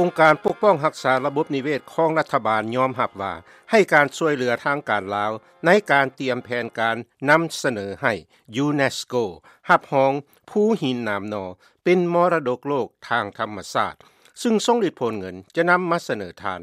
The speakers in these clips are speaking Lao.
ອົງການປົກປ້ອງຮັກສາລະບົບນິເວດຂອງລັດຖະບານຍອມຮັບວ່າ ໃຫ້ການຊ່ວຍເຫຼືອທາງການລາວ ໃນການຕຽມແຜນການນຳສະເໜີໃຫ້ຢູເນສໂກຮັບຮອງພູຫີນໜາມໜໍ່ ເປັນມໍລະດົກໂລກທາງທຳມະຊາດ ຊຶ່ງຊົງລິດຜົນເງິນຈະນຳມາສະເໜີທ່ານ.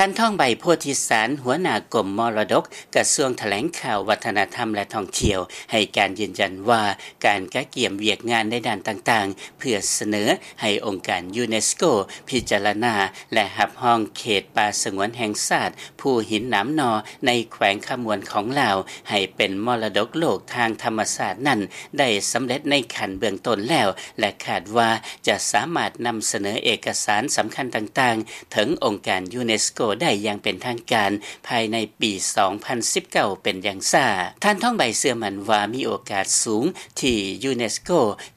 ທ່ານ ທອງໃບ ໂພທິສານ ຫົວໜ້າກົມມໍລະດົກ ກະຊວງຖະແຫຼງຂ່າວ ວັດທະນະທຳ ແລະ ທ່ອງທ່ຽວ ໃຫ້ການຢືນຢັນວ່າ ການກະກຽມວຽກງານໃນດ້ານຕ່າງໆ ເພື່ອສະເໜີໃຫ້ອົງການຢູເນສໂກພິຈາລະນາ ແລະ ຮັບຮອງເຂດປ່າສະຫງວນແຫ່ງຊາດ ພູຫີນໜາມໜໍ່ ໃນແຂວງຄຳມ່ວນຂອງລາວ ໃຫ້ເປັນມໍລະດົກໂລກທາງທຳມະຊາດນັ້ນ ໄດ້ສຳເລັດໃນຂັ້ນເບື້ອງຕົ້ນແລ້ວ ແລະ ຄາດວ່າຈະສາມາດນຳສະເໜີເອກະສານສຳຄັນຕ່າງໆ ເຖິງອົງການຢູເນສໂກໄດ້ຢ່າງເປັນທາງການ ພາຍໃນປີສອງພັນສິບເກົ້າ ເປັນຢ່າງຊ້າ. ທ່ານ ທອງໃບ ເຊື່ອໝັ້ນວ່າມີໂອກາດສູງທີ່ຢູເນສໂກ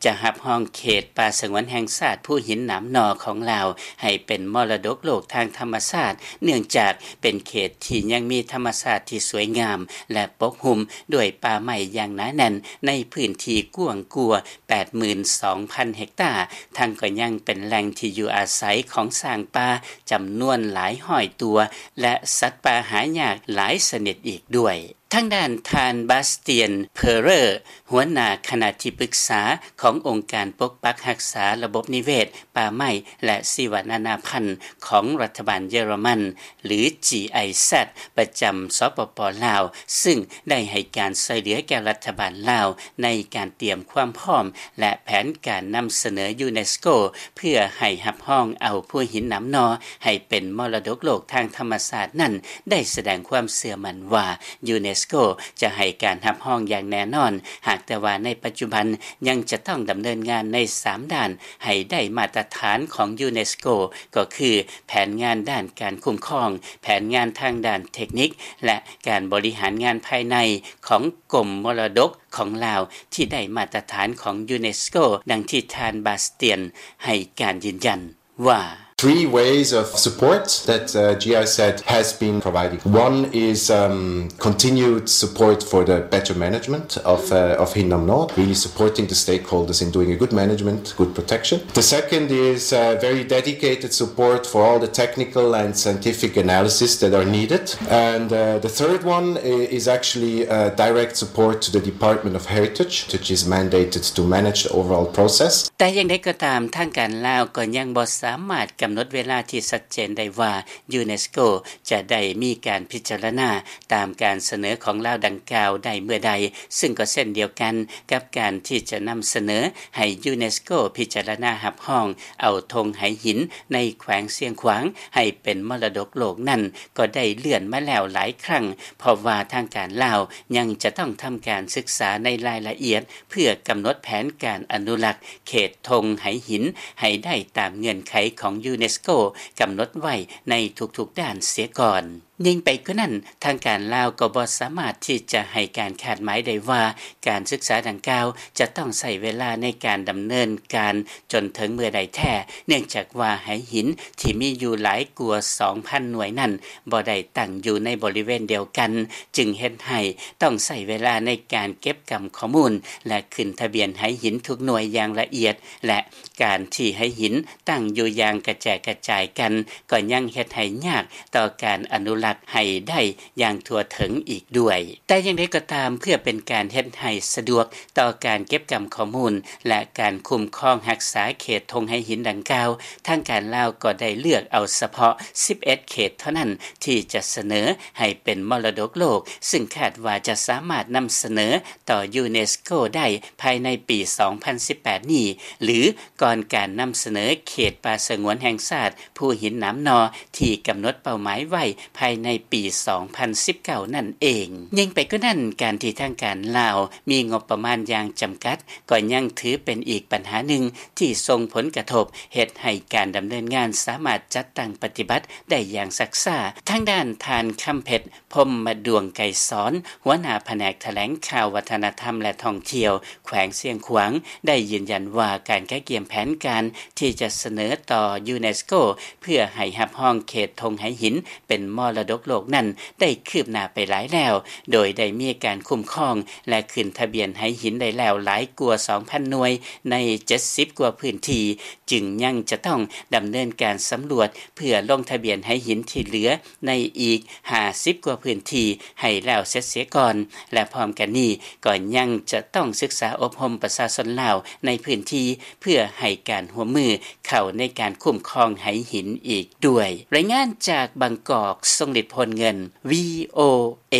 ຈະຮັບຮອງເຂດປ່າສະຫງວນແຫ່ງຊາດພູຫີນໜາມໜໍ່ຂອງລາວ ໃຫ້ເປັນມໍລະດົກໂລກທາງທຳມະຊາດ ເນື່ອງຈາກເປັນເຂດທີ່ຍັງມີທຳມະຊາດທີ່ສວຍງາມ ແລະ ປົກຫຸ້ມດ້ວຍປ່າໄມ້ຢ່າງໜາແໜ້ນ ໃນພື້ນທີ່ກວ້າງກວ່າ ແປດໝື່ນສອງພັນເຮັກຕາ, ທັງກໍຍັງເປັນແຫຼ່ງທີ່ຢູ່ອາໄສຂອງຊ້າງປ່າຈຳນວນຫຼາຍຮ້ອຍຕົວ ແລະ ສັດປ່າຫາຍາກຫຼາຍຊະນິດອີກດ້ວຍ. ທາງດ້ານທ່ານ ບາສຕຽນ ເພີເຣີ ຫົວໜ້າຄະນະທີ່ປຶກສາຂອງອົງການປົກປັກຮັກສາລະບົບນິເວດ, ປ່າໄມ້ ແລະ ຊີວະນານາພັນຂອງລັດຖະບານເຢຍລະມັນ ຫຼື ຈີໄອແຊັດ ປະຈຳ ສປປ ລາວ ຊຶ່ງໄດ້ໃຫ້ການຊ່ວຍເຫຼືອແກ່ລັດຖະບານລາວ ໃນການຕຽມຄວາມພ້ອມ ແລະ ແຜນການນຳສະເໜີຢູເນສໂກ ເພື່ອໃຫ້ຮັບຮອງເອົາພູຫີນໜາມໜໍ່ໃຫ້ເປັນມໍລະດົກໂລກທາງທຳມະຊາດນັ້ນ ໄດ້ສະແດງຄວາມເຊື່ອໝັ້ນວ່າ ຢູເນສໂກຈະໃຫ້ການຮັບຮອງຢ່າງແນ່ນອນ, ຫາກແຕ່ວ່າໃນປັດຈຸບັນຍັງຈະຕ້ອງດຳເນີນງານໃນສາມດ້ານໃຫ້ໄດ້ມາດຕະຖານຂອງຢູເນສໂກ ກໍຄື ແຜນງານດ້ານການຄຸ້ມຄອງ, ແຜນງານທາງດ້ານເທັກນິກ ແລະ ການບໍລິຫານງານພາຍໃນຂອງກົມມໍລະດົກຂອງລາວ ທີ່ໄດ້ມາດຕະຖານຂອງຢູເນສໂກ, ດັ່ງທີ່ທ່ານ ບາສຕຽນ ໃຫ້ການຢືນຢັນວ່າ. Three ways of support that, uh, GIZ has been providing. One is, um, continued support for the better management of, uh, of Hinnam North, really supporting the stakeholders in doing a good management, good protection. The second is, uh, very dedicated support for all the technical and scientific analysis that are needed. And, uh, the third one i-, is actually, uh, direct support to the Department of Heritage, which is mandated to manage the overall process. ແຕ່ຢ່າງໃດກໍຕາມ, ທາງການລາວກໍຍັງບໍ່ສາມາດກຳນົດເວລາທີ່ຊັດເຈນໄດ້ວ່າ ຢູເນສໂກຈະໄດ້ມີການພິຈາລະນາຕາມການສະເໜີຂອງລາວດັ່ງກ່າວໄດ້ເມື່ອໃດ, ຊຶ່ງກໍເຊັ່ນດຽວກັນກັບການທີ່ຈະນຳສະເໜີໃຫ້ຢູເນສໂກພິຈາລະນາຮັບຮອງເອົາທົ່ງໄຫຫີນໃນແຂວງຊຽງຂວາງໃຫ້ເປັນມໍລະດົກໂລກນັ້ນ ກໍໄດ້ເລື່ອນມາແລ້ວຫຼາຍຄັ້ງ, ເພາະວ່າທາງການລາວຍັງຈະຕ້ອງທຳການສຶກສາໃນລາຍລະອຽດ ເພື່ອກຳນົດແຜນການອະນຸລັກເຂດທົ່ງໄຫຫີນໃຫ້ໄດ້ຕາມເງື່ອນໄຂຂອງຢູເນສໂກກຳນົດໄວ້ໃນທຸກໆດ້ານເສຍກ່ອນ. ຍິ່ງໄປກວ່ານັ້ນ, ທາງການລາວກໍບໍ່ສາມາດທີ່ຈະໃຫ້ການຄາດໝາຍໄດ້ວ່າ ການສຶກສາດັ່ງກ່າວຈະຕ້ອງໃຊ້ເວລາໃນການດຳເນີນການຈົນເຖິງເມື່ອໃດແທ້, ເນື່ອງຈາກວ່າໄຫຫີນທີ່ມີຢູ່ຫຼາຍກວ່າສອງພັນໜ່ວຍນັ້ນ ບໍ່ໄດ້ຕັ້ງຢູ່ໃນບໍລິເວນດຽວກັນ, ຈຶ່ງເຮັດໃຫ້ຕ້ອງໃຊ້ເວລາໃນການເກັບກຳຂໍ້ມູນ ແລະ ຂຶ້ນທະບຽນໄຫຫີນທຸກໜ່ວຍຢ່າງລະອຽດ ແລະ ການທີ່ໄຫຫີນຕັ້ງຢູ່ຢ່າງກະແຈກກະຈາຍກັນ ກໍຍັງເຮັດໃຫ້ຍາກຕໍ່ການອະນຸລັກໃຫ້ໄດ້ຢ່າງທົ່ວເຖິງອີກດ້ວຍ. ແຕ່ຢ່າງໃດກໍຕາມ, ເພື່ອເປັນການເຮັດໃຫ້ສະດວກຕໍ່ການເກັບກຳຂໍ້ມູນ ແລະ ການຄຸ້ມຄອງຮັກສາເຂດທົ່ງໄຫຫີນດັ່ງກ່າວ, ທາງການລາວກໍໄດ້ເລືອກເອົາສະເພາະສິບເອັດເຂດເທົ່ານັ້ນ ທີ່ຈະສະເໜີໃຫ້ເປັນມໍລະດົກໂລກ, ຊຶ່ງຄາດວ່າຈະສາມາດນຳສະເໜີຕໍ່ຢູເນສໂກໄດ້ພາຍໃນປີສອງພັນສິບແປດນີ້ ຫຼື ກ່ອນການນຳສະເໜີເຂດປ່າສະຫງວນແຫ່ງຊາດພູຫີນໜາມໜໍ່ ທີ່ກຳນົດເປົ້າໝາຍໄວ້ພາຍໃນປີສອງພັນສິບເກົ້ານັ້ນເອງ. ຍິ່ງໄປກວ່ານັ້ນ, ການທີ່ທາງການລາວມີງົບປະມານຢ່າງຈຳກັດ ກໍຍັງຖືເປັນອີກບັນຫາໜຶ່ງທີ່ສົ່ງຜົນກະທົບເຮັດໃຫ້ການດຳເນີນງານສາມາດຈັດຕັ້ງປະຕິບັດໄດ້ຢ່າງຊັກຊ້າ. ທາງດ້ານທ່ານ ຄຳເພັດ ພົມມະດວງໄກສອນ ຫົວໜ້າພະແນກຖະແຫຼງຂ່າວ ວັດທະນະທຳ ແລະ ທ່ອງທ່ຽວ ແຂວງຊຽງຂວາງ ໄດ້ຢືນຢັນວ່າ ການກະກຽມແຜນການທີ່ຈະສະເໜີຕໍ່ຢູເນສໂກ ເພື່ອໃຫ້ຮັບຮອງເຂດທົ່ງໄຫຫີນເປັນມໍລະ ຕົກໂລກນັ້ນ ໄດ້ຄືບໜ້າໄປຫຼາຍແລ້ວ ໂດຍໄດ້ມີການຄຸ້ມຄອງ ແລະ ຂຶ້ນທະບຽນໄຫຫີນໄດ້ແລ້ວຫຼາຍກວ່າ ສອງພັນ ໜ່ວຍ ໃນ ເຈັດສິບ ກວ່າພື້ນທີ່ ຈຶ່ງຍັງຈະຕ້ອງດຳເນີນການສຳຫຼວດ ເພື່ອລົງທະບຽນໄຫຫີນທີ່ເຫຼືອໃນອີກ ຫ້າສິບ ກວ່າພື້ນທີ່ ໃຫ້ແລ້ວເສັດເສຍກ່ອນ ແລະ ພ້ອມກັນນີ້ກໍຍັງຈະຕ້ອງສຶກສາອົບຮົມປະຊາຊົນລາວໃນພື້ນທີ່ ເພື່ອໃຫ້ການຮ່ວມມືເຂົ້າໃນການຄຸ້ມຄອງໄຫຫີນອີກດ້ວຍ. ລາຍງານຈາກບາງກອກ ຊົງລິດ ໂພນເງິນ ວີໂອເອ.